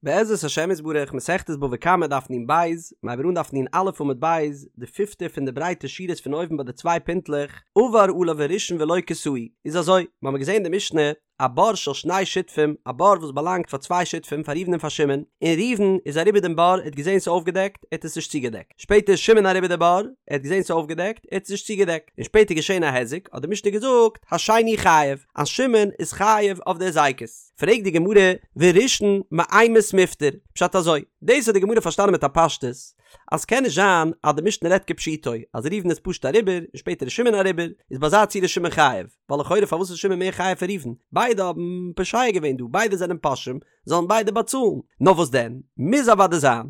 בעזרת השם יתברך, מסכת בבא קמא דף נ בית, מיר הייבן אן דף נ א עמוד ב', די פיפטע פון די ברייטע שורות פון אויבן ביי די צוויי פינטלעך, עבר עליו הראשון ולא כסהו, איז אזוי, מיר האבן געזען אין די משנה, א בור של שני שותפים, א בור וואס באלאנגט פאר צוויי שותפים, פאר ראובן און פאר שמעון, און ראובן איז אריבער דעם בור, ער האט געזען ס'איז אויפגעדעקט, ער האט עס נישט צוגעדעקט. שפעטער איז שמעון אריבער די בור, ער האט געזען ס'איז אויפגעדעקט, ער האט עס נישט צוגעדעקט, און שפעטער געשען א היזק, האט די משנה געזאגט, השני חייב, אז שמעון איז חייב אויף די הזיקות. פרעגט די גמרא, וראשון מאימת מיפטר? פשט אזוי, דאס האט די גמרא פארשטאנען מיט א פשטות, אז ס'קען נישט זיין אז די משנה רעדט כפשוטו, אז ראובן איז פשוט אריבער, און שפעטער איז שמעון אריבער, איז ביי אזא ציור איז שמעון חייב, ווייל לכאורה פארוואס איז שמעון מער חייב פון ראובן? ביידע האבן פושע געווען דא, ביידע זענען פושעים, זאלן ביידע באצאלן. נאר וואס דען, מוז אוודאי זיין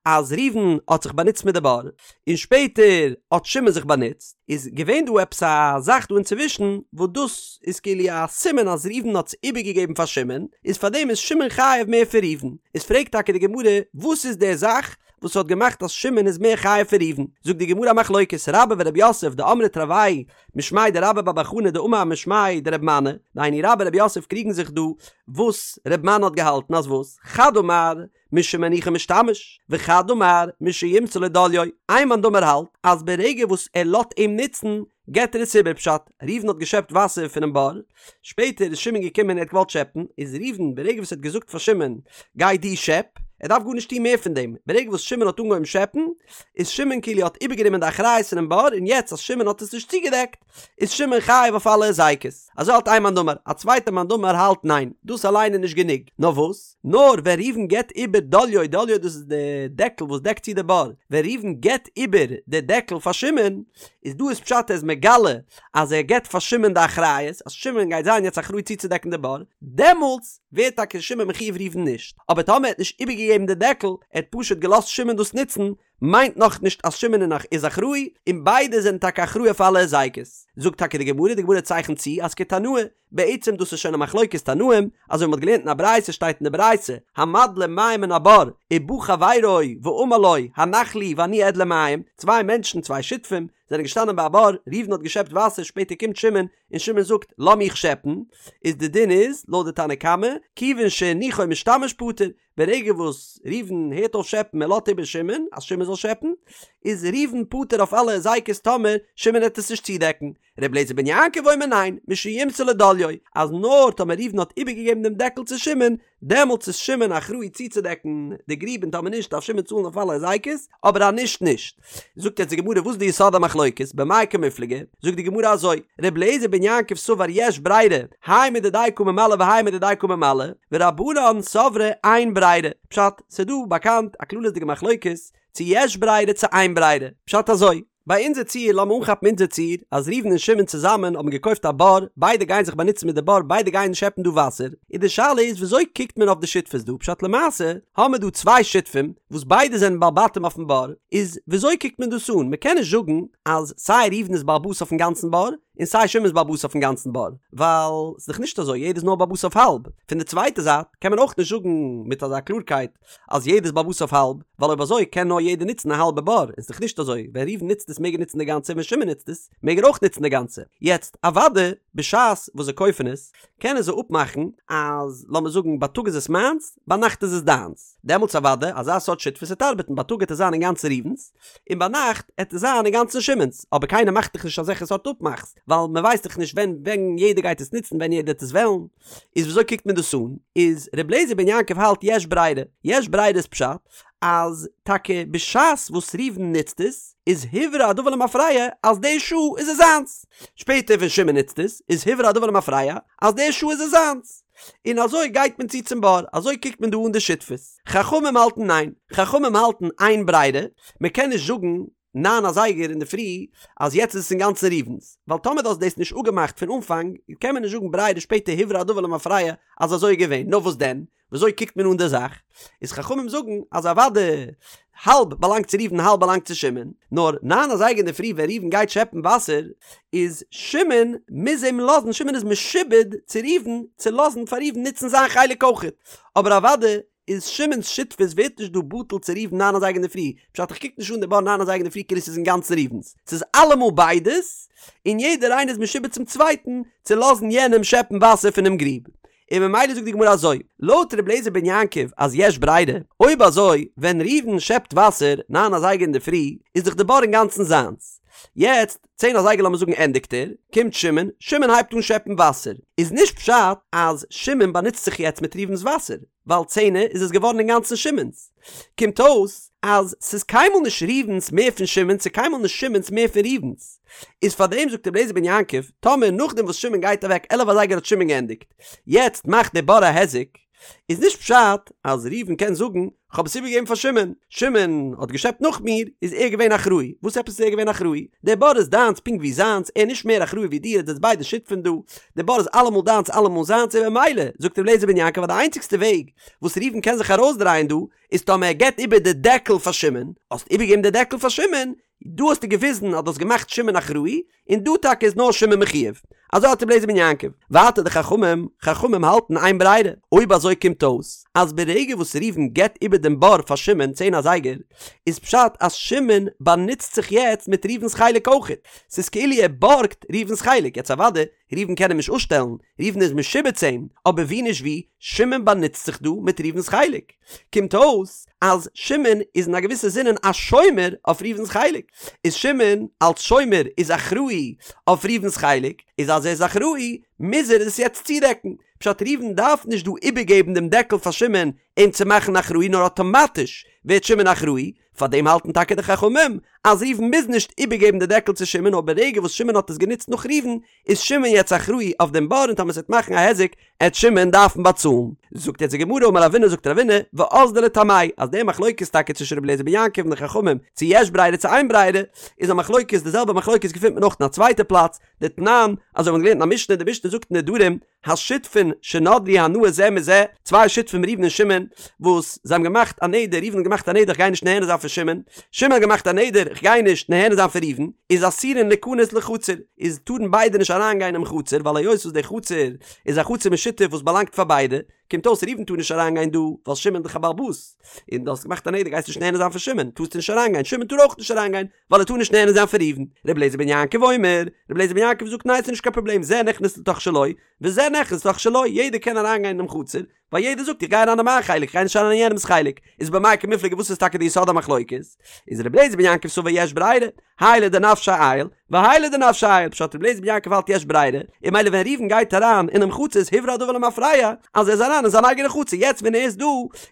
אז ראובן האט זיך באנוצט מיט די בור, און שפעטער האט שמעון זיך באנוצט, איז געווען דא עפעס א זאך דא אינצווישן וואס דאס איז כאילו א סימן אז ראובן האט עס איבערגעגעבן פאר שמעון, איז פארדעם איז שמעון חייב מער פון ראובן. איז פרעגט טאקע די גמרא, וואס איז די זאך וואס האט געמאכט אז שמעון איז מער חייב פון ראובן? זאגט די גמרא א מחלוקת, רבה ורב יוסף דאמרי תרוייהו משמיה דרבה בר בר חנה דאמר משמיה דרב מני, דהיינו רבה רב יוסף קריגן זיך דא וואס רב מני האט געהאלטן אז וואס, חד אמר משמניחו משתמש, וחד אמר משימסור לו דליו, איין מאן דאמר האלט אז ברגע וואס ער לאט אים נוצן געט ער עס איבער פשט, ראובן האט געשעפט וואסער פונעם בור, שפעטער איז שמעון געקומען און ער האט געוואלט שעפן, איז ראובן ברגע וואס ער האט געזאגט פאר שמעון גיי דו שעפ, ער דארף גארנישט טון מער פון דעם, ברגע וואס שמעון האט אנגעהויבן שעפן, איז שמעון כאילו האט איבערגענומען די אחריות פונעם בור, און יעצט אז שמעון האט עס נישט צוגעדעקט, איז שמעון חייב אויף אלע הזיקות. אזוי האלט איין מאן דאמר, א צווייטער מאן דאמר האלט ניין, דאס אליין איז נישט גענוג, נאר וואס? נאר ווען ראובן געבט איבער דליו, דליו דאס איז די דעקל וואס דעקט צו די בור, ווען ראובן געבט איבער די דעקל פאר שמעון, איז דא איז פשט ער איז מגלה אז ער געבט פאר שמעון די אחריות, אז שמעון גייט זיין יעצט אחראי צוצודעקן די בור, דעמאלטס ווערט טאקע שמעון מחויב ראובן נישט, אבער טאמער ער האט נישט איבערגעגעבן די דעקל, ער האט פשוט געלאזט שמעון דאס נוצן, מיינט נאך נישט אז שמעון איז אחראי, און ביידע זענען טאקע אחראי אויף אלע הזיקות. זאגט טאקע די גמרא, די גמרא צייכנט צו אז כתנאי, בעצם דאס איז שוין א מחלוקת תנאים, אזוי ווי מ'האט געלערנט אין א ברייתא שטייט אין די ברייתא, המדלה מים מן הבור, ובא חברו ואמר לו, הנח לי ואני אדלה מים, צוויי מענטשן, צוויי שותפים, זענען געשטאנען ביי א בור, ראובן האט געשעפט וואסער, שפעטער קומט שמעון, און שמעון זאגט, לאז מיך שעפן, איז די דין איז, לויט די תנא קמא, כיוון שהניחו משתמש פטור, ברגע וואס ראובן הערט אויף שעפן ער לאזט איבער שמעון אז שמעון זאל שעפן, איז ראובן פטור אויף אלע הזיקות טאמער שמעון העט עס נישט צודעקן. ר' אליעזר בן יעקב אומר ניין, משימסור לו דליו, אז נאר טאמער ראובן האט איבערגעגעבן דעם דעקל צו שמעון, דעמאלטס איז שמעון אחראי צוצודעקן די גריב און טאמער נישט דארף שמעון צאלן אויף אלע הזיקות, אבער אז נישט נישט. זאגט יעצט די גמרא וואס איז די יסוד המחלוקת, במאי קמיפלגי, זאגט די גמרא אזוי, ר' אליעזר בן יעקב סבר יש ברירה, האי מדידיה קא ממלא והאי מדידיה קא ממלא, ורבנן סברי אין ברירה, פשט, ס'דא באקאנט א כללית'דיגע מחלוקת צו יש ברירה צו אין ברירה, פשט אזוי, ביי אונזער ציור, לאמיר אנכאפן אונזער ציור, אז ראובן און שמעון צוזאמען האבן געקויפט א בור, ביידע גייען זיך באנוצן מיט די בור, ביידע גייען שעפן דא וואסער, און די שאלה איז וויאזוי קוקט מען אויף די שותפות דא, פשט למעשה האמיר דא צוויי שותפים וואס ביידע זענען בעל בתים אויפן בור, איז וויאזוי קוקט מען דאס אן, מען קען נישט זאגן אז סיי ראובן איז בעל הבית אויפן גאנצן בור, און סיי שמעון איז בעל הבית אויפן גאנצן בור, ווייל ס'איז דאך נישט אזוי, יעדער איז נאר בעל הבית אויף האלב, פון די צווייטע זייט קען מען אויך נישט זאגן מיט אזא קלארקייט אז יעדער איז בעל הבית אויף האלב, ווייל אויב אזוי קען נאר יעדער נוצן א האלבע בור, און ס'איז דאך נישט אזוי, ווען ראובן נוצט עס מעג ער נוצן די גאנצע און ווען שמעון נוצט עס מעג ער אויך נוצן די גאנצע. יעצט אוודאי בשעת וואס זיי קויפן עס, קענען זיי אפמאכן אז לאמיר זאגן בייטאג איז עס מיינס, ביינאכט איז עס דיינס. דעמאלטס אוודאי אזא סארט שותפות וועט ארבעטן, בייטאג העט עס זיין אינגאנצן ראובן'ס, און ביינאכט העט עס זיין אינגאנצן שמעון'ס, אבער קיינער מאכט דאך נישט אזעלכע סארט אפמאכס, ווייל מען ווייסט דאך נישט ווען ווען יעדער גייט עס נוצן, ווען יעדער העט עס וועלן. איז וויאזוי קוקט מען דאס אן? איז ר' אליעזר בן יעקב האלט יש ברירה, יש ברירה איז פשט אז טאקע בשעת וואס ראובן נוצט עס איז הוברר הדבר למפרע אז די שעה איז עס זיינס, שפעטער ווען שמעון נוצט עס איז הוברר הדבר למפרע אז די שעה איז עס זיינס, און אזוי גייט מען צו צום בור, אזוי קוקט מען דא אן די שותפות. חכמים האלטן ניין, חכמים האלטן אין ברירה, מען קען נישט זאגן ניין אזייגער אינדערפרי אז יעצט איז עס אינגאנצן ראובן'ס, ווייל טאמער דו האסט דאס נישט אפגעמאכט פון אנפאנג קען מען נישט זאגן ברירה שפעטער הוברר הדבר למפרע אז אזוי איז געווען, נאר וואס דען? וויאזוי קוקט מען אן די זאך? איז חכמים זאגן אז אוודאי האלב באלאנגט צו ראובן האלב באלאנגט צו שמעון, נאר ניין אזייגער אינדערפרי ווען ראובן גייט שעפן וואסער איז שמעון מוז אים לאזן, שמעון איז משועבד צו ראובן צו לאזן פאר ראובן נוצן זיין חלק אויכעט, אבער אוודאי איז שמעון'ס שותפות ווערט נישט דא בטל צו ראובן ניין אזייגער אינדערפרי, פשט איך קוק נישט אן די בור ניין אזייגער אינדערפרי כאילו ס'איז אינגאנצן ראובן'ס, ס'איז אלעמאל ביידעס, און יעדער איינער איז משועבד צום צווייטן צו לאזן יענעם שעפן וואסער פונעם גריב. און ממילא זאגט די גמרא אזוי, לויט ר' אליעזר בן יעקב אז יש ברירה, אויב אזוי ווען ראובן שעפט וואסער ניין אזייגער אינדערפרי איז דאך די בור אינגאנצן זיינס, יעצט צען אזייגער לאמיר זאגן ענדיגט ער, קומט שמעון, שמעון הייבט אן שעפן וואסער, איז נישט פשט אז שמעון באנוצט זיך יעצט מיט ראובן'ס וואסער, ווייל צענע איז עס געווארן אינגאנצן שמעון'ס. קומט אויס אז ס'איז קיינמאל נישט ראובן'ס מער פון שמעון'ס און קיינמאל נישט שמעון'ס מער פון ראובן'ס. איז פארדעם זאגט רבי אליעזר בן יעקב, טאמער נאכדעם וואס שמעון גייט אוועק 11 אזייגער האט שמעון געענדיגט, יעצט מאכט דער בור א היזק, איז נישט פשט אז ראובן קען זאגן כ'האב עס איבערגעגעבן פאר שמעון, שמעון האט געשעפט נאך מיר, איז ער געווען אחראי, וואס עפעס איז ער געווען אחראי? דער בור איז דיינס פונקט ווי זיינס, ער איז נישט מער אחראי ווי דיר, עטס זענטס ביידע שותפים דא, דער בור איז אלעמאל דיינס אלעמאל זיינס, און ממילא, זאגט רבי אליעזר בן יעקב אז די איינציגסטע וועג וואס ראובן קען זיך ארויסדרייען דא, איז טאמער ער געבט איבער די דעקל פאר שמעון, האסט איבערגעגעבן די דעקל פאר שמעון, דא האסטו געוויזן אז דו האסט געמאכט שמעון אחראי, און דא טאקע איז נאר שמעון מחויב. אזוי האלט רבי אליעזר בן יעקב. ווייטער די חכמים, חכמים האלטן אין ברירה. אויב אזוי קומט אויס אז ברגע וואס ראובן געבט איבער דעם בור פאר שמעון צען אזייגער, איז פשט אז שמעון באנוצט זיך יעצט מיט ראובן'ס חלק אויכעט. ס'איז כאילו ער בארגט ראובן'ס חלק. יעצט אוודאי, ראובן קען אים נישט אפשטעלן, ראובן איז משועבד צו אים, אבער ווי נישט ווי, שמעון באנוצט זיך דא מיט ראובן'ס חלק. קומט אויס אז שמעון איז אין א געוויסע זינען א שומר אויף ראובן'ס חלק, איז שמעון אלס שומר איז אחראי אויף ראובן'ס חלק, איז אז ער איז אחראי מוז ער עס יעצט צודעקן, פשט ראובן דארף נישט דא איבערגעבן דעם דעקל פאר שמעון אים צו מאכן אחראי נאר אטאמאטיש ווערט שמעון אחראי, פארדעם האלטן טאקע די חכמים אז ראובן מוז נישט איבערגעבן די דעקל צו שמעון נאר ברגע וואס שמעון האט עס גענוצט נאך ראובן איז שמעון יעצט אחראי אויף דעם בור און טאמער ס'וועט מאכן א היזק עט שמעון דארפן באצאלן. זאגט יעצט די גמרא אמר רבינא זאגט רבינא ואזדו לטעמייהו אז די מחלוקת טאקע צווישן רבי אליעזר בן יעקב און די חכמים צו יש ברירה צו אין ברירה איז א מחלוקת די זעלבע מחלוקת געפינט מען אויך אין א צווייטע פלאץ דתנן אזוי האבן מיר געלערנט אין א משנה די משנה זאגט אין נדרים השותפין שנדרו הנאה זה מזה, צוויי שותפים ראובן און שמעון, וואס זיי האבן געמאכט א נדר, ראובן האט געמאכט א נדר איך גיי נישט נהנה זיין פון שמעון, שמעון האט געמאכט א נדר איך גיי נישט נהנה זיין פון ראובן, איז אסורין ליכנס לחצר, איז טארן ביידע נישט אריין גיין אינעם חצר, ווייל היות וואס די חצר איז א חצר משותף וואס באלאנגט פאר ביידע, קומט אויס ראובן טאר נישט אריין גיין דא, ווייל שמעון איז דאך א בעל הבית, און דו האסט געמאכט א נדר גייסט נישט נהנה זיין פון שמעון, טארסטו נישט אריין גיין, שמעון טאר אויך נישט אריין גיין, ווייל ער טאר נישט נהנה זיין פון ראובן. רבי אליעזר בן יעקב אומר, רבי אליעזר בן יעקב זאגט ניין ס'נישט קיין פראבלעם זה נכנס לתוך שלו וזה נכנס לתוך שלו יעדער קען אריינגיין אינעם חצר ווייל יעדער זאגט איך גיי אריין אין מיין חלק איך גיי נישט אריין אין יענעמ'ס חלק איז במאי קמיפלגי וואס איז טאקע די יסוד המחלוקת איז רבי אליעזר בן יעקב סבר יש ברירה האי לדנפשיה עייל והאי לדנפשיה עייל פשט רבי אליעזר בן יעקב האלט יש ברירה און ממילא ווען ראובן גייט אריין אינעם חצר איז הוברר הדבר למפרע אז ער איז אריין אין זיין אייגענע חצר יעצט ווען ער איז דא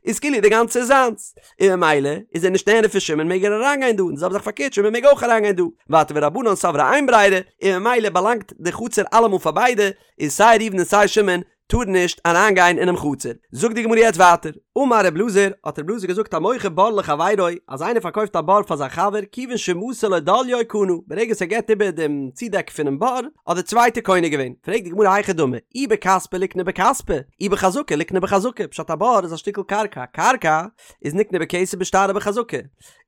איז כאילו די גאנצע איז זיינס און ממילא איז ער נישט נהנה פון שמעון מעג ער אריינגיין דא און די זעלבע זאך פארקערט שמעון מעג אויך אריינגיין דא ווייטער ורבנן סברי אין ברירה און ממילא באלאנגט די חצר אלעמאל פאר ביידע און סיי ראובן און סיי שמעון טארן נישט אריינגיין אינעם חצר. זאגט די גמרא יעצט ווייטער, אמר רב אלעזר, האט רב אלעזר געזאגט המוכר בור לחבירו, אז איינער פארקויפט א בור פאר זיין חבר, כיוון שמסר לו דליו קנה, ברגע וואס ער געבט איבער דעם צודעק פונעם בור, האט דער צווייטער קונה געווען. פרעגט די גמרא היכי דמי, אי בכספא ליקני בכספא, אי בחזקה ליקני בחזקה, פשט א בור איז א שטיקל קרקע, קרקע איז נקנה בכסף בשטר ובחזקה,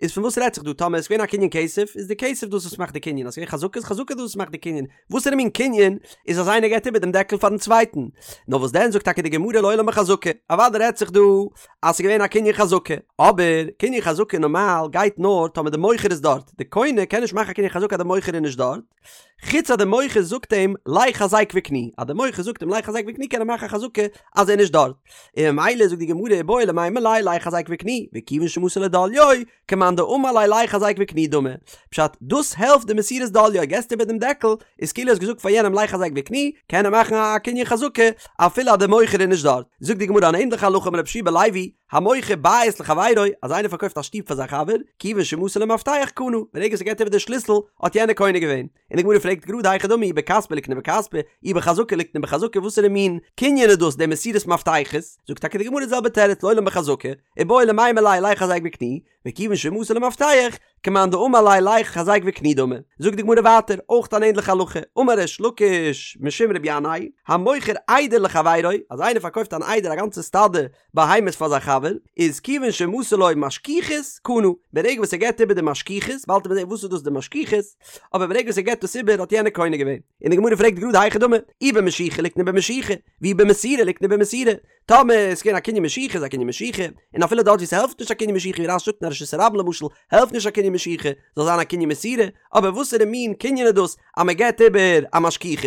איז פון וואס רעדט זיך דא, טאמער עס איז געווען א קנין כסף, איז די כסף דאס וואס מאכט די קנין, אז עס איז געווען חזקה איז חזקה דאס וואס מאכט די קנין, וואסערע מין קנין איז אז איינער געבט איבער דעם דעקל פארן צווייטן? נאר וואס דען זאגט טאקע די גמרא לעולם בחזקה, אוודאי רעדט זיך דא אז ס'איז געווען א קנין חזקה, אבער קנין חזקה נארמאל גייט נאר טאמער די מוכר איז דארט, די קונה קען נישט מאכן א קנין חזקה אז די מוכר איז נישט דארט, חוץ אז די מוכר זאגט אים לך חזק וקני, אז די מוכר זאגט אים לך חזק וקני קען ער מאכן א חזקה אז ער איז נישט דארט, און ממילא זאגט די גמרא איבעי למימר ליה לך חזק וקני, וכיוון שמסר לו דליו, כמאן דאמר ליה לך חזק וקני דמי, פשט, דאס העלפט די מסירת דליו, געסט איבער דעם דעקל, איז כאילו האסט געזאגט פאר יענעם לך חזק וקני, קען ער מאכן א קנין חזקה אפילו אז דער מוכר איז נישט דארט. זאגט די גמרא אן ענדליכע הלכה אמר רבי יהושע בן לוי, המוכר בית לחבירו, אז איינער פארקויפט א שטוב פאר זיין חבר, כיוון שמסר לו מפתח קנה, ברגע וואס ער געבט איבער די שליסל, האט יענער קונה געווען. און די גמרא פרעגט גראד היכי דמי אי בכספא ליקני בכספא, אי בחזקה ליקני בחזקה, וואסערע מין קנין איז דאס די מסירת מפתחות? זאגט טאקע די גמרא די זעלבע תירוץ לעולם בחזקה, איבעי למימר ליה לך חזק וקני, וכיוון שמסר לו מפתח, כמאן דאמר ליה לך חזק וקני דמי. זאגט די גמרא ווייטער, אויך אן ענדליכע הלכה, אמר ריש לקיש משום רבי ינאי, המוכר עדר לחבירו, אז איינער פארקויפט אן עדר א גאנצע סטאדע בהמות פאר זיין חבר, איז כיוון שמסר לו משכוכית קנה, ברגע וואס ער געבט איבער די משכוכית, באלד וועט מען זען וואס איז דאס די משכוכית, אבער ברגע וואס ער געבט דאס איבער האט יענער קונה געווען. און די גמרא פרעגט גראד היכי דמי, אי במשיכה ליקני במשיכה, ואי במסירה ליקני במסירה, טאמער איז געווען א קנין משיכה איז א קנין משיכה, און אפילו דארט ווי ס'העלפט נישט א קנין משיכה ווי רש"י זאגט אין א רשות הרבים למשל העלפט נישט א קנין. קנין משיכה, זאל זיין א קנין מסירה, אבער וואסערע מין קנין איז דאס אז מען געבט איבער א משכוכית?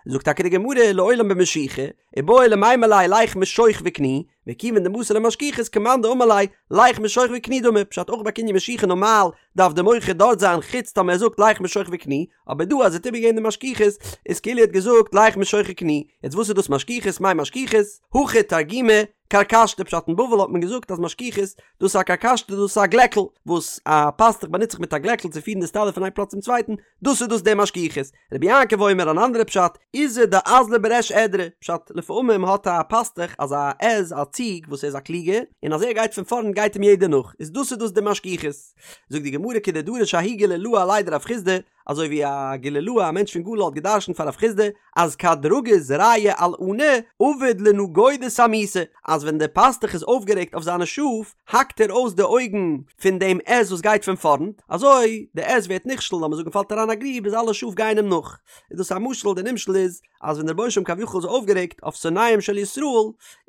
זאגט טאקע די גמרא לעולם במשיכה, איבעי למימר ליה לך משוך וקני, וכיוון דמסר ליה משכוכית כמאן דאמר ליה לך משוך וקני דמי, פשט אויך ביי קנין משיכה נארמאל דארף די מוכר דארט זיין חוץ טאמער ער זאגט לך משוך וקני, אבער דא אז ער האט איבערגעגעבן די משכוכית איז כאילו ער האט געזאגט לך משוך וקני, יעצט וואס איז דאס משכוכית מאי משכוכית? הכא תרגימא כרכשתא פשט אין בבל האט מען געזאגט אז משכוכית דאס איז א כרכשתא דאס איז א גלעקל וואס א פאסטוך באנוצט זיך מיט א גלעקל צו פירן די סטאדע פון איין פלאץ צום צווייטן דאס איז דאס די משכוכית רבי יעקב אומר אן אנדערע פשט עיזא דאזלא בריש עדרא פשט לפעמים האט א פאסטוך אזא עז א ציג וואס ער איז א קלוגער און אז ער גייט פון פארנט גייט אים יעדער נאך איז דאס איז דאס די משכוכית זאגט די גמרא כדדרש ההוא גלילאה עליה דרב חסדא אזוי ווי א גלילאה א מענטש פון גליל האט געדרשנט פאר רב חסדא אז כד רגיז רעיא על עני עביד לנגודא סמיתא אז ווען דער פאסטוך איז אויפגערעגט אויף זיינע שאף האקט ער אויס די אויגן פון דעם עז וואס גייט פון פארנט אזוי די עז ווערט נכשל לאמיר זאגן פאלט אריין א גריב איז אלע שאף גייען אים נאך איז דאס א משל די נמשל איז אז ווען דער רבונו של עולם כביכול איז אויפגערעגט אויף שונאיהם של ישראל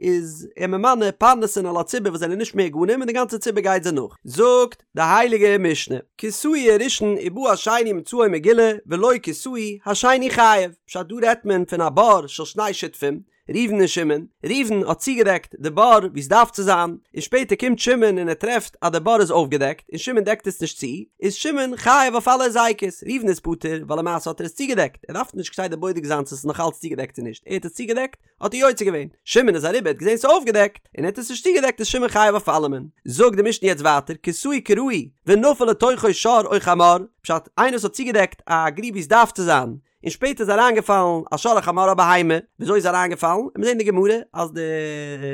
איז ער ממנה פרנסים על הציבור וואס זענען נישט מהוגנים און די גאנצע ציבור גייט זיי נאך. זאגט די הייליגע משנה, כסהו הראשון ובא השני ומצאו מגולה ולא כסהו השני חייב, פשט דא רעדט מען פון א בור של שני שותפים, ראובן און שמעון, ראובן האט צוגעדעקט די בור ווי עס דארף צו זיין, און שפעטער קומט שמעון און ער טרעפט אז די בור איז אויפגעדעקט און שמעון דעקט עס נישט צו, איז שמעון חייב אויף אלע היזקות, ראובן איז פטור ווייל למעשה האט ער עס צוגעדעקט, ער דארף נישט כסדר בודק זיין צו עס איז נאך אלץ צוגעדעקט צו נישט, ער האט עס צוגעדעקט האט ער יוצא געווען, שמעון איז אריבער האט געזען ס'איז אויפגעדעקט און ער האט עס נישט צוגעדעקט איז שמעון חייב אויף אלעמען. זאגט די משנה יעצט ווייטער כסהו כראוי ונפל לתוכו שור או חמור, פשט, איינער וואס האט צוגעדעקט א גריב ווי עס דארף צו זיין, און שפעטער איז אריינגעפאלן א שור א חמור א בהמה, וויאזוי איז אריינגעפאלן? מיר זעהן אין די גמרא אז די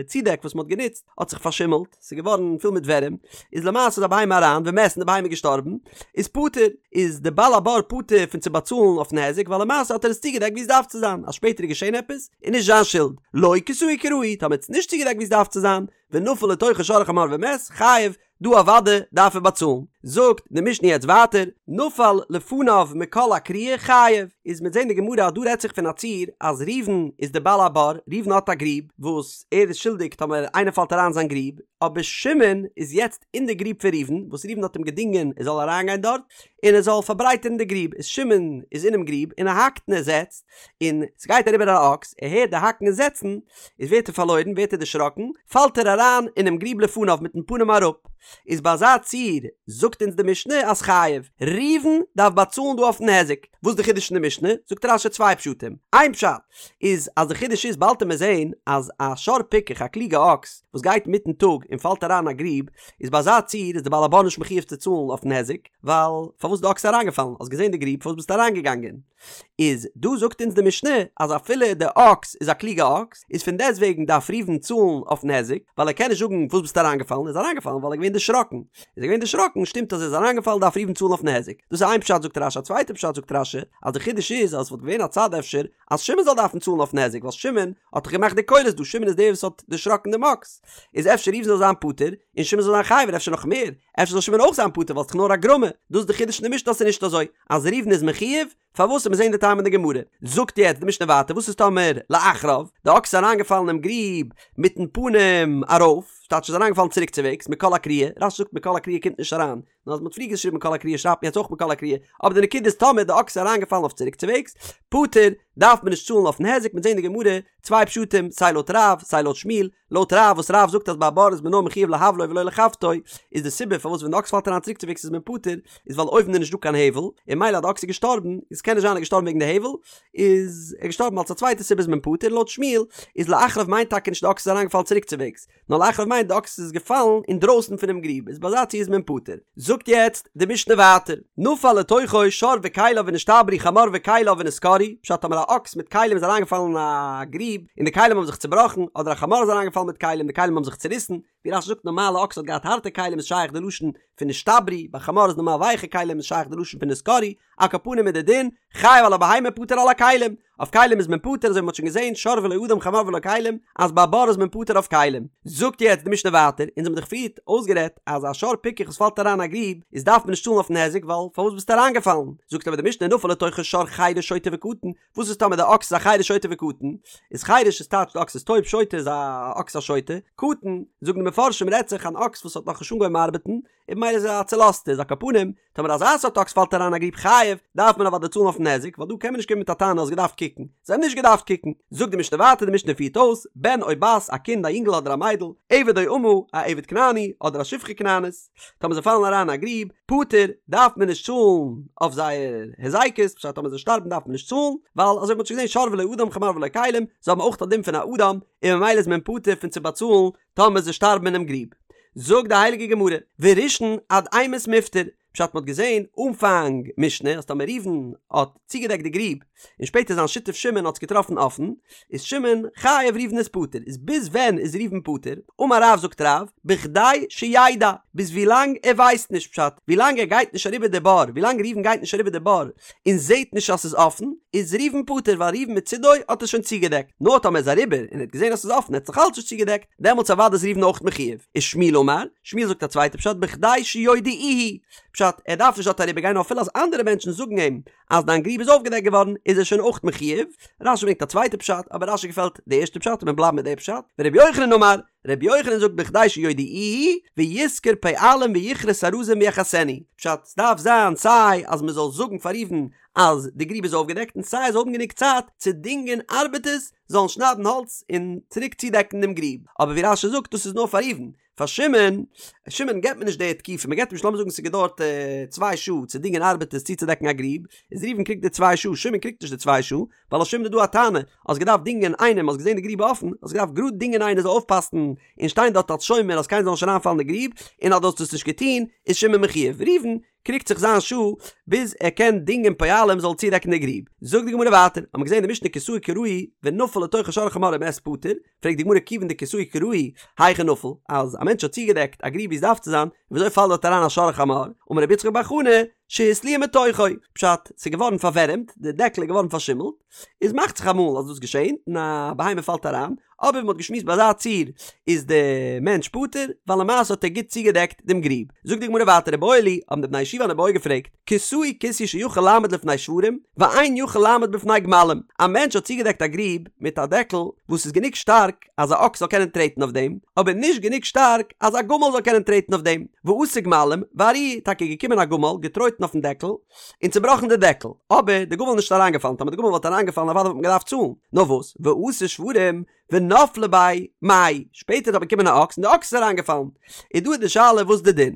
צודעק וואס מען האט גענוצט האט זיך פארשימלט, ס'איז געווארן פול מיט ווערים, איז למעשה איז א בהמה אריין ומת און די בהמה איז געשטארבן, איז פטור, איז די בעל הבור פטור פון צו באצאלן אויפן היזק ווייל למעשה האט ער עס צוגעדעקט ווי עס דארף צו זיין, אז שפעטער איז געשען עפעס איז נישט זיין שולד, לא כסהו כראוי, טאמער האט עס נישט צוגעדעקט ווי עס דארף צו זיין, ונפל לתוכו שור או חמור ומת, חייב, דא אוודאי דארף ער באצאלן. זאגט די משנה יעצט ווייטער, נפל לפניו מכל הכרייה חייב, איז מ'עט זעהן די גמרא אז דא רעדט זיך פון א ציור אז ראובן איז די בעל הבור, ראובן האט א גריב וואס ער איז שולדיג טאמער איינער פאלט אריין זיין גריב, אבער שמעון איז יעצט אין די גריב פון ראובן, וואס ראובן האט אים געדינגען ער זאל אריינגיין דארט און ער זאל פארברייטערן די גריב, איז שמעון איז אינעם גריב און ער האקט און ער זעצט, און ס'גייט אריבער א אקס, ער הערט די האקן און זעצן, איז ווערט ער פארלוירן, ווערט ער דערשראקן, פאלט ער אריין אינעם גריב לפניו מיטן פנים אראפ. איז ביי אזא ציור זאגט אונז די משנה אז חייב. ראובן דארף באצאלן דא אויפן היזק. וואס איז די חידוש אין די משנה? זאגט רש"י צוויי פשטים. איין פשט איז אז די חידוש איז באלד עמיר זעהן אז א שור פיקח א קלוגע אקס וואס גייט מיטן טאג און פאלט אריין אין א גריב איז ביי אזא ציור איז די בעל הבור נישט מחויב צו צאלן אויפן היזק ווייל פארוואס איז די אקס אריינגעפאלן? האסט געזעהן די גריב פארוואס ביסטו אריינגעגאנגען? איז דא זאגט אונז די משנה אז אפילו די אקס איז א קלוגע אקס איז פון דעסט וועגן דארף ראובן צאלן אויפן היזק ווייל ער קען נישט זאגן וואס ביסטו אריינגעפאלן ער איז אריינגעפאלן ווייל ער איז געווען דערשראקן איז ער געווען דערשראקן שטימט אז ער איז אריינגעפאלן דארף ראובן צאלן אויפן היזק דאס איז איין פשט זאגט רש"י א צווייטע פשט זאגט רש"י אז די חידוש איז אז עס וואלט געווען א צד אפשר אז שמעון זאל דארפן צאלן אויפן היזק ווייל שמעון האט דאך געמאכט די קולות דא שמעון איז דער וואס האט דערשראקן דעם אקס איז אפשר ראובן זאל זיין פטור און שמעון זאל זיין חייב און אפשר נאך מער אפשר זאל שמעון אויך זיין פטור ווייל ס'איז דאך נאר א גרמא דאס איז די חידוש אין די משנה אז ס'איז נישט אזוי אז ראובן איז מחויב, פארוואס מיר זעהן די טעם אין די גמרא, זאגט יעצט די משנה ווייטער וואס איז טאמער לאחריו, די אקס איז אריינגעפאלן אינעם גריב מיטן פנים ארויף, ס'טייטש איז אריינגעפאלן צוריק צוועגס, מכל הכרייה, רש"י זאגט מכל הכרייה קומט נישט אריין, נאר אז מ'האט פריער געשריבן מכל הכרייה שרייבט מען יעצט אויך מכל הכרייה, אבער די נקודה איז טאמער די אקס איז אריינגעפאלן אויף צוריק צוועגס, פטור, דארף מען נישט צאלן אויפן היזק, מיר זעהן די גמרא, צוויי פשטים, סיי לויט רב, סיי לויט שמואל, לויט רב וואס רב זאגט אז ביי א בור איז מען נאר מחויב להבלו ולא לחבטו, איז די סיבה פארוואס ווען די אקס פאלט אריין צוריקצווועגס איז מען פטור, איז ווייל אויבן איז נישט דא קיין הבל, און ממילא אז די אקס איז געשטארבן, איז קען נישט זיין ער איז געשטארבן וועגן די הבל, איז ער געשטארבן אלס א צווייטע סיבה איז מען פטור, לויט שמואל איז לאחריו מיינט טאקע נישט די אקס איז אריינגעפאלן צוריקצווועגס, נאר לאחריו מיינט די אקס איז געפאלן אינדרויסן פונעם גריב, איז ביי אזא ציור איז מען פטור. זאגט יעצט די משנה ווייטער, נפל לתוכו שור וכליו ונשתברו חמור וכליו ונתקרעו, פשט טאמער א אקס מיט כלים איז אריינגעפאלן אין א גריב און די כלים האבן זיך צובראכן, אדער א חמור איז אריינגעפאלן מיט כלים די כלים האבן זיך צוריסן, ווי רש"י זאגט נארמאל א אקס האט געהאט הארטע כלים איז שייך די לשון פון נשתברו, ביי חמור איז נארמאל ווייכע כלים איז שייך די לשון פון נתקרעו, על כל פנים איז די דין, חייב על הבהמה פטור על הכלים, אויף כלים איז מען פטור אזוי ווי מען האט שוין געזען שור ולא אדם חמור ולא כלים אז ביי בור איז מען פטור אויף כלים. זאגט יעצט די משנה ווייטער, אונז האבן דאך פריערט אויסגערעדט אז א שור פיקח וואס פאלט אריין אין א גריב איז דארף מען נישט צאלן אויפן היזק ווייל פארוואס ביסטו אריינגעפאלן? זאגט אבער די משנה נפל לתוכו שור חירש שוטה וקטן, וואס איז טאמער די אקס איז א חירש שוטה וקטן? איז חירש איז טייטש די אקס איז טויב שוטה איז א אקס א שוטה, קטן זאגן די מפרשים רעדט זיך אן אקס וואס האט נאכנישט אנגעהויבן ארבעטן, און ממילא איז ער א צולאזטער, איז על כל פנים, טאמער אזא סארט אקס פאלט אריין א גריב חייב, דארף מען אוודאי צאלן אויפן היזק, ווייל דא קען מען נישט קומען מיט א טענה האסט געדארפט קוקן, זיי האבן נישט געדארפט קוקן. זאגט די משנה ווייטער, די משנה פירט אויס, בן או בת, א קינד א יונגל אדער א מיידל, עבד או אמה, א עבד כנעני, אדער א שפחה כנענית, טאמער זיי פאלן אריין אין א גריב, פטור, דארף מען נישט צאלן אויף זייער היזקות, פשט טאמער זיי שטארבן דארף מען נישט צאלן, ווייל אזוי ווי מען האט שוין געזען שור ולא אדם חמור ולא כלים, זיי האבן אויך א דין פון א אדם, און ממילא איז מען פטור פון צו באצאלן טאמער זיי שטארבן אינעם גריב. זאגט די הייליגע גמרא, וראשון עד אימת מיפטר, פשט מ'האט געזען אנפאנג משנה אז טאמער ראובן האט צוגעדעקט די גריב און שפעטער זיין שותף שמעון האט עס געטראפן אפן, איז שמעון חייב ראובן איז פטור, איז ביז ווען איז ראובן פטור? אמר רב זאגט רב, בכדי שידע, ביז ווילאנג ער ווייסט נישט, פשט, ווילאנג ער גייט נישט אריבער די בור, ווילאנג ראובן גייט נישט אריבער די בור און זעט נישט אז ס'איז אפן, איז ראובן פטור ווייל ראובן מצידו האט עס שוין צוגעדעקט, נאר טאמער ער איז אריבער און ער האט געזען אז ס'איז אפן ער האט עס נאכאלץ נישט צוגעדעקט, דעמאלטס אוודאי איז ראובן אויך מחויב. ושמואל אמר, שמואל זאגט א צווייטע פשט בכדי שיודיעוהו, פשט, ער דארף נישט דארט אריבער גיין נאר אפילו אז אנדערע מענטשן זאגן אים אז דיין גריב איז אויפגעדעקט געווארן איז ער שוין אויך מחויב, רשי ברענגט א צווייטע פשט אבער רשי געפעלט די ערשטע פשט און מיר בלייבן מיט די פשט, ורבי יוחנן אמר, רבי יוחנן זאגט בכדי שיודיעוהו וישכור פועלים ויכרות ארזים ויכסנו, פשט, ס'דארף זיין סיי אז מ'זאל זאגן פאר ראובן אז די גריב איז אויפגעדעקט און סיי ער זאל האבן גענוג צייט צו דינגען ארבעטערס זאלן שניידן האלץ און צוריק צודעקן דעם גריב, אבער ווי רשי זאגט דאס איז נאר פאר ראובן, פאר שמעון, שמעון געבט מען נישט די תקופה, מען געבט אים נישט לאמיר זאגן ס'האט געדויערט צוויי שעה צו דינגען ארבעטערס צוצודעקן א גריב, איז ראובן קריגט די צוויי שעה, שמעון קריגט נישט די צוויי שעה, ווייל אויף שמעון איז דא א טענה, האסט געדארפט דינגען איינעם, האסט געזען די גריב אפן, האסט געדארפט גראד דינגען איינער זאל אויפפאסן און שטיין דארט אלס שומר אז קיינער זאל נישט אריינפאלן אין די גריב, און אז דו האסט עס נישט געטון, איז שמעון מחויב. ראובן קריגט זיך זיין שעה ביז ער קען דינגען פועלים זאל צודעקן די גריב. זאגט די גמרא ווייטער, האט מען געזען אין די משנה כסהו כראוי ונפל לתוכו שור או חמור ומת פטור, פרעגט די גמרא כיוון דכסהו כראוי היכי נפל, אז א מענטש האט צוגעדעקט א גריב ווי עס דארף צו זיין, וויאזוי פאלט דארט אריין א שור או חמור? אמר רבי יצחק בר חנא, שהתליע מתוכו, פשט, ס'איז געווארן פארווערעמט, די דעקל איז געווארן פארשימלט, איז מאכט זיך אמאל אז דאס געשענט און א בהמה פאלט אריין, אבער ווי מ'האט געשמועסט ביי אזא ציור איז די מענטש פטור, ווייל למעשה האט ער גוט צוגעדעקט דעם גריב. זאגט די גמרא ווייטער איבעיא להו, האבן די בני ישיבה אן איבעיא געפרעגט, כסהו כיסוי שיכול לעמוד לפני שוורים, ואין יכול לעמוד בפני גמלים, א מענטש האט צוגעדעקט א גריב מיט א דעקל וואס איז גענוג שטארק אז א אקס זאל קענען טרעטן אויף דעם, אבער נישט גענוג שטארק אז א גמל זאל קענען טרעטן אויף דעם, ואתו גמלים, וארעוה, טאקע געקומען א גמל, געטרויטן אויפן דעקל, און צובראכן די דעקל, אבער די גמל איז נישט אריינגעפאלן, טאמער די גמל וואלט אריינגעפאלן אוודאי וואלט מען געדארפט צאלן, נאר וואס, ואתו שוורים, ונפלי ביה מאי, שפעטער איז אבער געקומען א אקס און די אקס איז אריינגעפאלן, איז דא איז די שאלה וואס די דין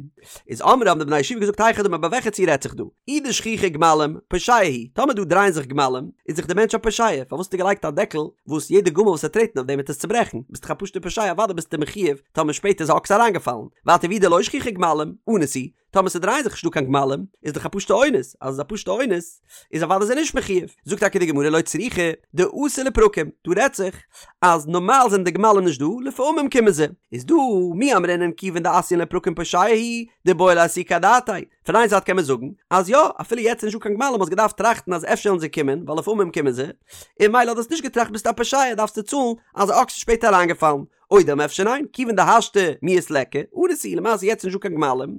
איז, אמרי האבן די בני ישיבה געזאגט היכי דמי ביי וועלכע ציור רעדט זיך דא, אי דשכיחי גמלים, פושע הוא, טאמער דא דרייען זיך גמלים, איז דאך די מענטש א פושע, פארוואס האסטו געלייגט א דעקל וואס יעדע גמל וואס וועט טרעטן אויף דעם וועט עס צוברעכן, ביסט דאך א פשוטע פושע אוודאי ביסטו מחויב טאמער שפעטער איז א אקס אריינגעפאלן, ווייטער ואי דלא שכיחי גמלים, אנוס הוא, טאמער ס'דרייען זיך נישט דא קיין גמלים, איז דאך א פשוטע אונס, אז עס איז א פשוטע אונס, איז אוודאי איז ער נישט מחויב. זאגט טאקע די גמרא לא צריכא דאתו לפרקים, דא רעדט זיך אז נארמאל זענען די גמלים נישט דא, לפעמים קומען זיי. איז דא מי אמרינן כיוון דאתיין לפרקים פושע הוא, דאיבעי לאסוקי אדעתיה. פון איין זייט קען מען זאגן, אז יא, אפילו יעצט איז נישט דא קיין גמלים האסט געדארפט טראכטן אז אפשר וועלן זיי קומען, ווייל לפעמים קומען זיי, און ממילא האסט נישט געטראכט ביסטו א פושע דארפסטו צאלן אז א אקס איז שפעטער אריינגעפאלן. או דלמא אפשר ניין, כיוון דהשתא מיהת ליכא, אנוס הוא, למעשה יעצט איז נישטא קיין גמלים,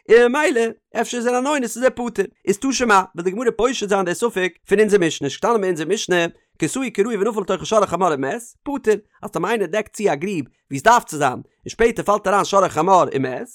און ממילא אפשר איז ער אן אונס איז ער פטור. איז תא שמע, וויל די גמרא פושט זיין די ספק פון אונזער משנה, ס'געשטאנען אין אונזער משנה, כסהו כראוי ונפל לתוכו שור או חמור ומת, פטור, אז טאמער איינער דעקט צו א גריב ווי עס דארף צו זיין, און שפעטער פאלט אריין שור או חמור ומת,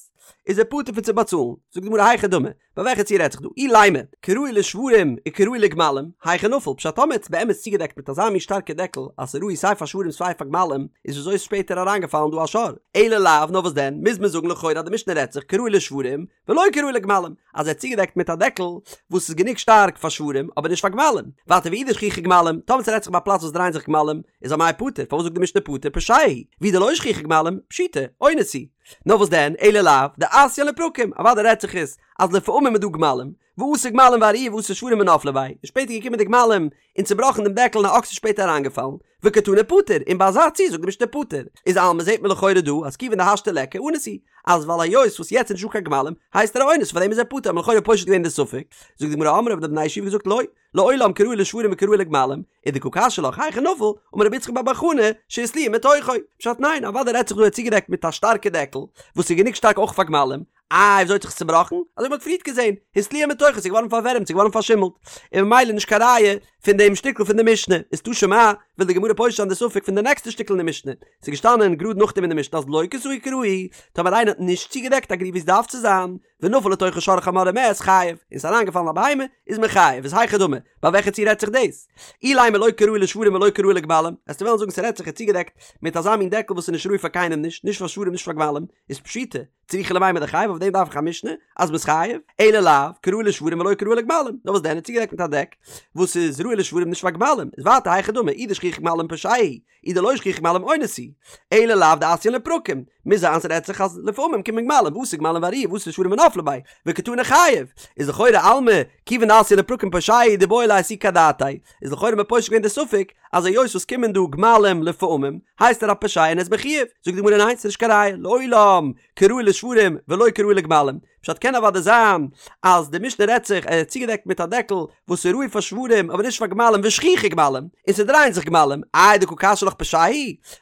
איז ער פטור פון צו באצאלן. זאגט די גמרא היכי דמי, ביי וועלכע ציור רעדט זיך דא? אילימא, כראוי לשוורים וכראוי לגמלים, היכי נפל, פשט טאמער האט עס באמת צוגעדעקט מיט אזא מין שטארקע דעקל אז ס'איז ראוי סיי פאר שוורים סיי פאר גמלים, איז וויאזוי איז שפעטער אריינגעפאלן דא א שור? אלא לאו, נאר וואס דען, מוז מען זאגן לכאורה אז די משנה רעדט זיך כראוי לשוורים ולא כראוי לגמלים, אז ער האט צוגעדעקט מיט א דעקל וואס איז גענוג שטארק פאר שוורים אבער נישט פאר גמלים. ווייטער ואי דשכיחי גמלים, טאמער ס'רעדט זיך ביי א פלאץ וואס דרייען זיך גמלים, איז אמאי פטור, פארוואס זאגט די משנה פטור פושע הוא, ואי דלא שכיחי גמלים, פשיטא, אונס הוא. נאר וואס דען, אלא לאו, דאתיין לפרקים, אוודאי רעדט זיך עס אז לפעמים איז דא גמלים, ואתו גמלים וארעוה ואתו שוורים ונפלי ביה, און שפעטער געקומען די גמלים און צובראכן דעם דעקל און א אקס איז שפעטער אריינגעפאלן, וקתני פטור, און ביי אזא ציור זאגט די משנה פטור, איז אלמא זעט מען לכאורה דא אז כיוון דהשתא ליכא אנוס הוא, אז ווייל היות וואס יעצט איז נישטא קיין גמלים, הייסט ער א אונס פארדעם איז ער פטור, האט מען לכאורה פושט געווען די ספק, זאגט די גמרא אמרי האבן די בני ישיבה געזאגט לא, לעולם כראוי לשוורים וכראוי לגמלים, ודקא קשיא לך היכי נפל, אמר רבי יצחק בר בר חנה, שהתליע מתוכו. פשט ניין, אוודאי רעדט זיך דא ער האט צוגעדעקט מיט א שטארקע דעקל, וואס איז גענוג שטארק אויך פאר גמלים, איי וויאזוי האט זיך עס צובראכן? אזוי ווי מ'האט פריערט געזען, התליע מתוכו, ס'איז געווארן פארווערעמט, ס'איז געווארן פארשימלט, און ממילא נישט קיין ראיה פון דעם שטיקל פון די משנה, איז תא שמע, וויל די גמרא פושט זיין די ספק פון די נעקסטע שטיקל אין די משנה, ס'איז געשטאנען גראד נאכדעם אין די משנה אז לא כסהו כראוי, טאמער איינער האט נישט צוגעדעקט א גריב ווי עס דארף צו זיין, ונפל לתוכה שור או חמור ומת, חייב, און ס'איז אריינגעפאלן א בהמה, איז מען חייב, איז היכי דמי, ביי וועלכע ציור רעדט זיך דאס? אילימא לא כראוי לשוורים ולא כראוי לגמלים, וועסטו וועלן זאגן ס'רעדט זיך ער האט צוגעדעקט מיט אזא מין דעקל וואס איז נישט ראוי פאר קיינעם נישט, נישט פאר שוורים נישט פאר גמלים, איז פשיטא, צריכא למימר דחייב אויף דעם דארף איך א משנה אז מ'איז חייב, אלא לאו, כראוי לשוורים ולא כראוי לגמלים, נאר וואס דען ער האט צוגעדעקט מיט א דעק וואס איז ראוי לשוורים נישט פאר גמלים, איז ווייטער היכי דמי, אי דשכיחי גמלים פושע הוא, אי דלא שכיחי גמלים אונס הוא, אלא לאו דאתיין לפרקים, מוז זיין ס'רעדט זיך אז לפעמים קומען גמלים, ואתו גמלים וארעוה ואתו שוורים ונפלי ביה, וקתני חייב, איז לכאורה אלמא, כיוון דאתיין לפרקים פושע הוא דאיבעי ליה אסוקי אדעתיה, איז לכאורה מ'פושט געווען די ספק אז היות וואס קומען דא גמלים לפעמים הייסט ער א פושע און ער איז מחויב, זאגט די גמרא ניין ס'איז נישט קיין ראיה, לעולם כראוי לשוורים ולא כראוי לגמלים, פשט קען אוודאי זיין אז די משנה רעדט זיך ער האט צוגעדעקט מיט א דעקל וואס איז ראוי פאר שוורים אבער נישט פאר גמלים ושכיחי גמלים, און ס'דרייען זיך גמלים, איי דקא קשיא לך פושע הוא?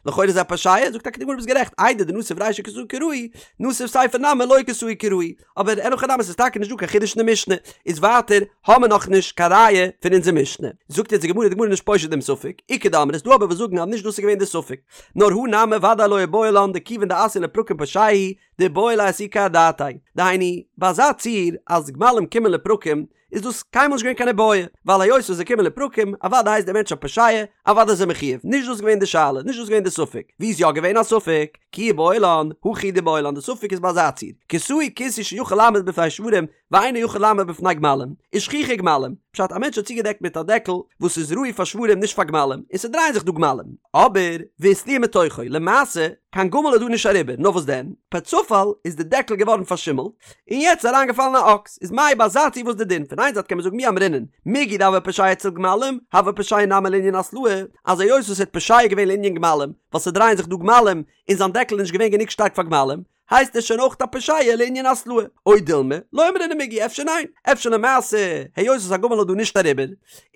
לכאורה איז ער א פושע, זאגט טאקע די גמרא ביסט גערעכט, איידי דנסיב רישא כסהו כראוי, נסיב סיפא נמי לא כסהו כראוי, אבער אין הכי נמי ס'איז טאקע נישט דא קיין חידוש אין די משנה, איז ווייטער האמער נאכנישט קיין ראיה פון אונזער משנה. זאגט יעצט די גמרא, די גמרא איז נישט פושט דעם ספק, איכא דאמרי ס'דא אבער וואס זאגן אז נישט דאס איז געווען די ספק, נאר הא נמי ודאי לא איבעיא לן דכיון דאתיין לפרקים פושע הוא דאיבעי ליה אסוקי אדעתיה, דהיינו, ביי אזא ציור אז גמלים קומען לפרקים איז דאס קיינמאל נישט געווען קיין איבעיא, ווייל היות וואס זיי קומען לפרקים, אוודאי הייסט דער מענטש א פושע, אוודאי איז ער מחויב, נישט דאס איז געווען די שאלה, נישט דאס איז געווען די ספק, ווי איז יא געווען א ספק? כי איבעיא לן, הכי דאיבעיא לן, די ספק איז ביי אזא ציור, כסהו כיסוי שיכול לעמוד בפני שוורים, ואינו יכול לעמוד בפני גמלים, ושכיחי גמלים, פשט א מענטש האט צוגעדעקט מיט א דעקל וואס איז ראוי פאר שוורים נישט פאר גמלים, און ס'דרייען זיך דא גמלים, אבער והתליע מתוכו, למעשה, קיין גמל איז דא נישט אריבער, נאר וואס דען, פער צופאל איז די דעקל געווארן פארשימלט, און יעצט איז אריינגעפאלן א אקס, איז מאי ביי אזא ציור וואס די דין? פון איין זייט קען מען זאגן מי אמרינן, מיגו דהוה פושע אצל גמלים, הוה פושע נמי לענין התלעה, אז היות וואס ער האט פושע געווען לענין גמלים, ווייל ס'דרייען זיך דא גמלים, און זיין דעקל איז נישט געווען גענוג שטארק פאר גמלים, הייסט ער שוין אויך א פושע לענין התלעה. או דילמא, לא אמרינן מיגו, אפשר ניין, אפשר למעשה, היות וואס א גמל איז דא נישט אריבער,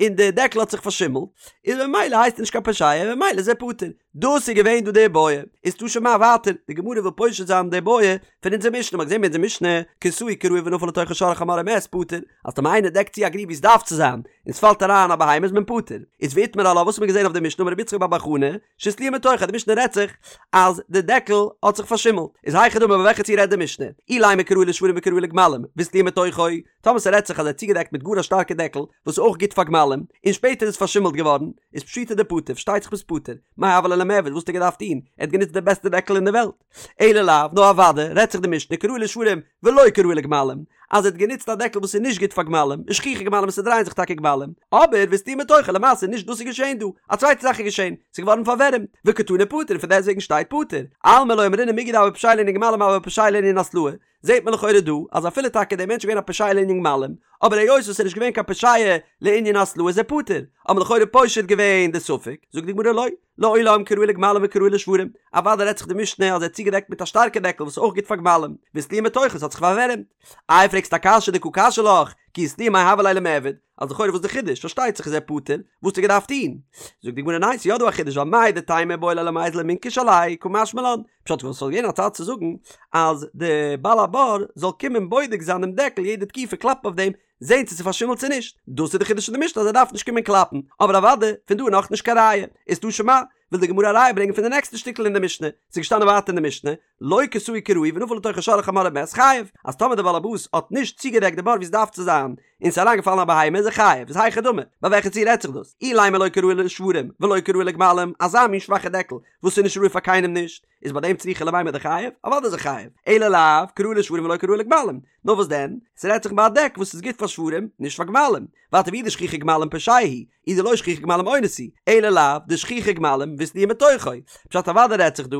און די דעקל האט זיך פארשימלט, איז ממילא הייסט ער נישט קיין פושע, און ממילא איז ער פטור. דאס איז געווען דא די איבעיא, איז תא שמע ווייטער, די גמרא וויל פושט זיין די איבעיא פון אונזער משנה, מ'האט געזען ביי אונזער משנה, כסהו כראוי ונפל לתוכו שור או חמור ומת פטור, אז טאמער איינער דעקט צו א גריב ווי עס דארף צו זיין, און עס פאלט אריין א בהמה איז מען פטור. איז ואיתמר עלה וואס האט מען געזען אויף די משנה אמר רבי יצחק בר בר חנה, שהתליע מתוכו, די משנה רעדט זיך אז די דעקל האט זיך פארשימלט, איז היכי דמי ביי וועלכע ציור רעדט די משנה, אילימא כראוי לשוורים וכראוי לגמלים, והתליע מתוכו, טאמער ס'רעדט זיך אז ער האט צוגעדעקט מיט גאר א שטארקע דעקל וואס איז אויך גוט פאר גמלים, און שפעטער איז עס פארשימלט געווארן, איז פשיטא דפטור, פארשטייט זיך ביסט פטור, מאי הוה ליה למיעבד, וואס האט ער געדארפט טון? ער האט גענוצט די בעסטע דעקל אין די וועלט. אלא לאו, נאר אוודאי, רעדט זיך די משנה כראוי לשוורים ולא כראוי לגמלים, אז ער האט גענוצט א דעקל וואס איז נישט גוט פאר גמלים, ושכיחי גמלים און ס'דרייען זיך טאקע גמלים, אבער והתליע מתוכו, למעשה נישט דאס איז געשען דא, א צווייטע זאך איז געשען, ס'איז געווארן פארווערעמט, וקתני פטור און פון דעסטוועגן שטייט פטור, אלמא לא אמרינן מיגו דהוה פושע לענין גמלים הוה פושע לענין התלעה, זעט מען לכאורה דא אז אפילו טאקע דער מענטש איז געווען א פושע לענין גמלים, אבער היות וואס ער איז נישט געווען קיין פושע לענין התלעה איז ער פטור, האט מען לכאורה פושט געווען די ספק, זאגט די גמרא לא, לעולם כראוי לגמלים וכראוי לשוורים, אוודאי רעדט זיך די משנה אז ער האט צוגעדעקט מיט א שטארקע דעקל וואס איז אויך גוט פאר גמלים, והתליע מתוכו ס'האט זיך פארווערעמט. איי פרעגסט א קשיא דקא קשיא לך, כי התליע מאי הוה ליה למיעבד, אז לכאורה וואס די חידוש, פארשטייט זיך איז ער פטור, וואס האט ער געדארפט טון? זאגט די גמרא ניין ס'איז יא דא א חידוש ווייל מהו דתימא איבעי ליה למיזל ומינכש עליה קא משמע לן, פשט וואס ס'וואלט געווען א צד צו זאגן אז די בעל הבור זאל קומען בודק זיין דעם דעקל יעדע תקופה קלאפן אויף דעם זען צו ס'איז פארשימלט צו נישט, דאס איז די חידוש פון די משנה אז ער דארף נישט קומען קלאפן, אבער אוודאי פון דא איז נאכנישט קיין ראיה, איז תא שמע, וויל די גמרא א ראיה ברענגען פון די נעקסטע שטיקל אין די משנה, ס'איז געשטאנען ווייטער אין די משנה, לא כסהו כראוי ונפל לתוכו שור או חמור ומת חייב, אז טאמער דער באלעבאס האט נישט צוגעדעקט די בור ווי עס דארף צו זיין, און ס'איז אריינגעפאלן א בהמה איז ער חייב, איז היכי דמי, ביי וועלכע ציור רעדט זיך דאס? אילימא לא כראוי לשוורים ולא כראוי לגמלים, אזא מין שוואכע דעקל וואס איז נישט ראוי פאר קיינעם נישט, איז ביי דעם צריכא למימר דחייב? אוודאי איז ער חייב, אלא לאו כראוי לשוורים ולא כראוי לגמלים, נאר וואס דען? ס'רעדט זיך ביי א דעק וואס איז גוט פאר שוורים, נישט פאר גמלים, ווייטער ואי דשכיחי גמלים פושע הוא, אי דלא שכיחי גמלים אונס הוא, אלא לאו דשכיחי גמלים והתליע מתוכו, פשט אוודאי רעדט זיך דא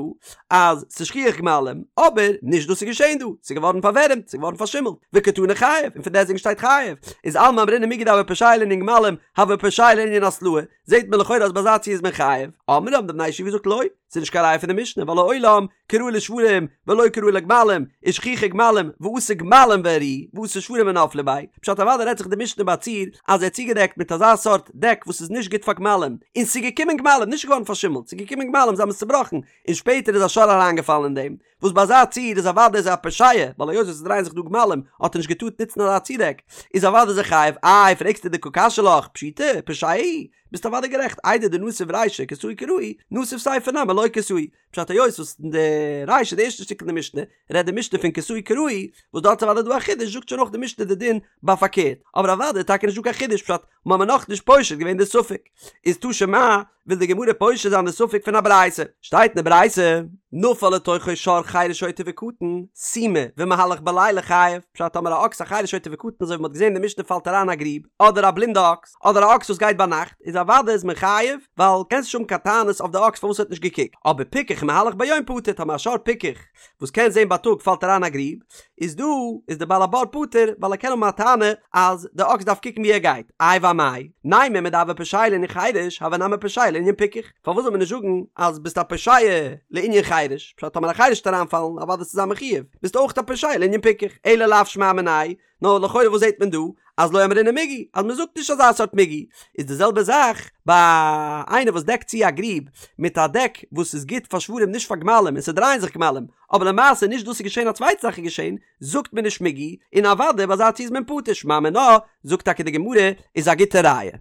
אז ס'איז שכיח גמלים, אבער נישט דאס איז געשען דא, ס'איז געווארן פארווערעמט, ס'איז געווארן פארשימלט, וקתני חייב, און פון דעסטוועגן שטייט חייב, איז אלמא אמרינן מיגו דהוה פושע לענין גמלים, הוה פושע לענין התלעה, זעט מען לכאורה אז ביי אזא ציור איז מען חייב, אמרי האבן די בני ישיבה געזאגט לא, ס'איז נישט קיין ראיה פון די משנה ווייל לעולם כראוי לשוורים ולא כראוי לגמלים, ושכיחי גמלים ואתו גמלים והריעו ואתו שוורים ונפלו ביה, פשט אוודאי רעדט זיך די משנה ביי א ציור אז ער האט צוגעדעקט מיט אזא סארט דעק וואס איז נישט גוט פאר גמלים, און ס'איז געקומען גמלים, נישט געווארן פארשימלט, ס'איז געקומען גמלים זיי האבן עס צובראכן, און שפעטער איז א שור אריינגעפאלן אין דעם, וואס ביי אזא ציור איז אוודאי איז ער א פושע, ווייל היות וואס עס דרייען זיך דא גמלים האט ער נישט געטארט נוצן אזא צודעק, איז אוודאי איז ער חייב, איי פרעגסטו דקא קשיא לך, פשיטא, פושע הוא, ביסט אוודאי גערעכט, איידי דנסיב רישא כסהו כראוי, נסיב סיפא נמי לא כסהו, פשט היות וואס אין די רישא די ערשטע שטיקל אין די משנה רעדט די משנה פון כסהו כראוי, וואס דארט איז אוודאי דא א חידוש זאגט שוין אויך די משנה די דין ביי פארקערט, אבער אוודאי איז טאקע נישט דא קיין חידוש פשט מ'האמיר נאכנישט פושט געווען די ספק, איז תא שמע וויל די גמרא פושט זיין די ספק פון א ברייתא, שטייט אין די ברייתא, נפל לתוכו שור חרש שוטה וקטן, סומא, ומהלך בלילה חייב, פשט טאמער א אקס א חרש שוטה וקטן אזוי ווי מ'האט געזען אין די משנה פאלט אריין א גריב, אדער א בלינדע אקס, אדער א אקס וואס גייט ביינאכט, איז אוודאי איז מען חייב, ווייל קענסט נישט האבן קיין טענות אויף די אקס פארוואס ער האט נישט געקוקט, אבער פיקח ומהלך ביום פטור, טאמער א שור פיקח וואס קען זען בייטאג פאלט אריין א גריב, איז דא איז די בעל הבור פטור ווייל ער קען האבן א טענה אז די אקס דארף קוקן ווי ער גייט, איי ואמאי, נימא מדהוה פושע לענין חרש הוי נמי פושע לענין פיקח, פארוואס זאל מען נישט זאגן אז ביסט א פושע לענין חרש, פשט טאמער א חרש וועט אריינפאלן אוודאי וועסטו זיין מחויב, ביסט אויך א פושע לענין פיקח, אלא לאו שמע מינה, נאר לכאורה וואס זעט מען דא? אז לא אמרינן מיגו, אז מען זאגט נישט אזא סארט מיגו, איז די זעלבע זאך ביי איינער וואס דעקט צו א גריב מיט א דעק וואס איז גוט פאר שוורים נישט פאר גמלים און ס'דרייען זיך גמלים, אבער למעשה נישט דאס איז געשען א צווייטע זאך איז געשען, זאגט מען נישט מיגו, און אוודאי ביי אזא ציור איז מען פטור, שמע מינה, זאגט טאקע די גמרא, איז א גוטע ראיה.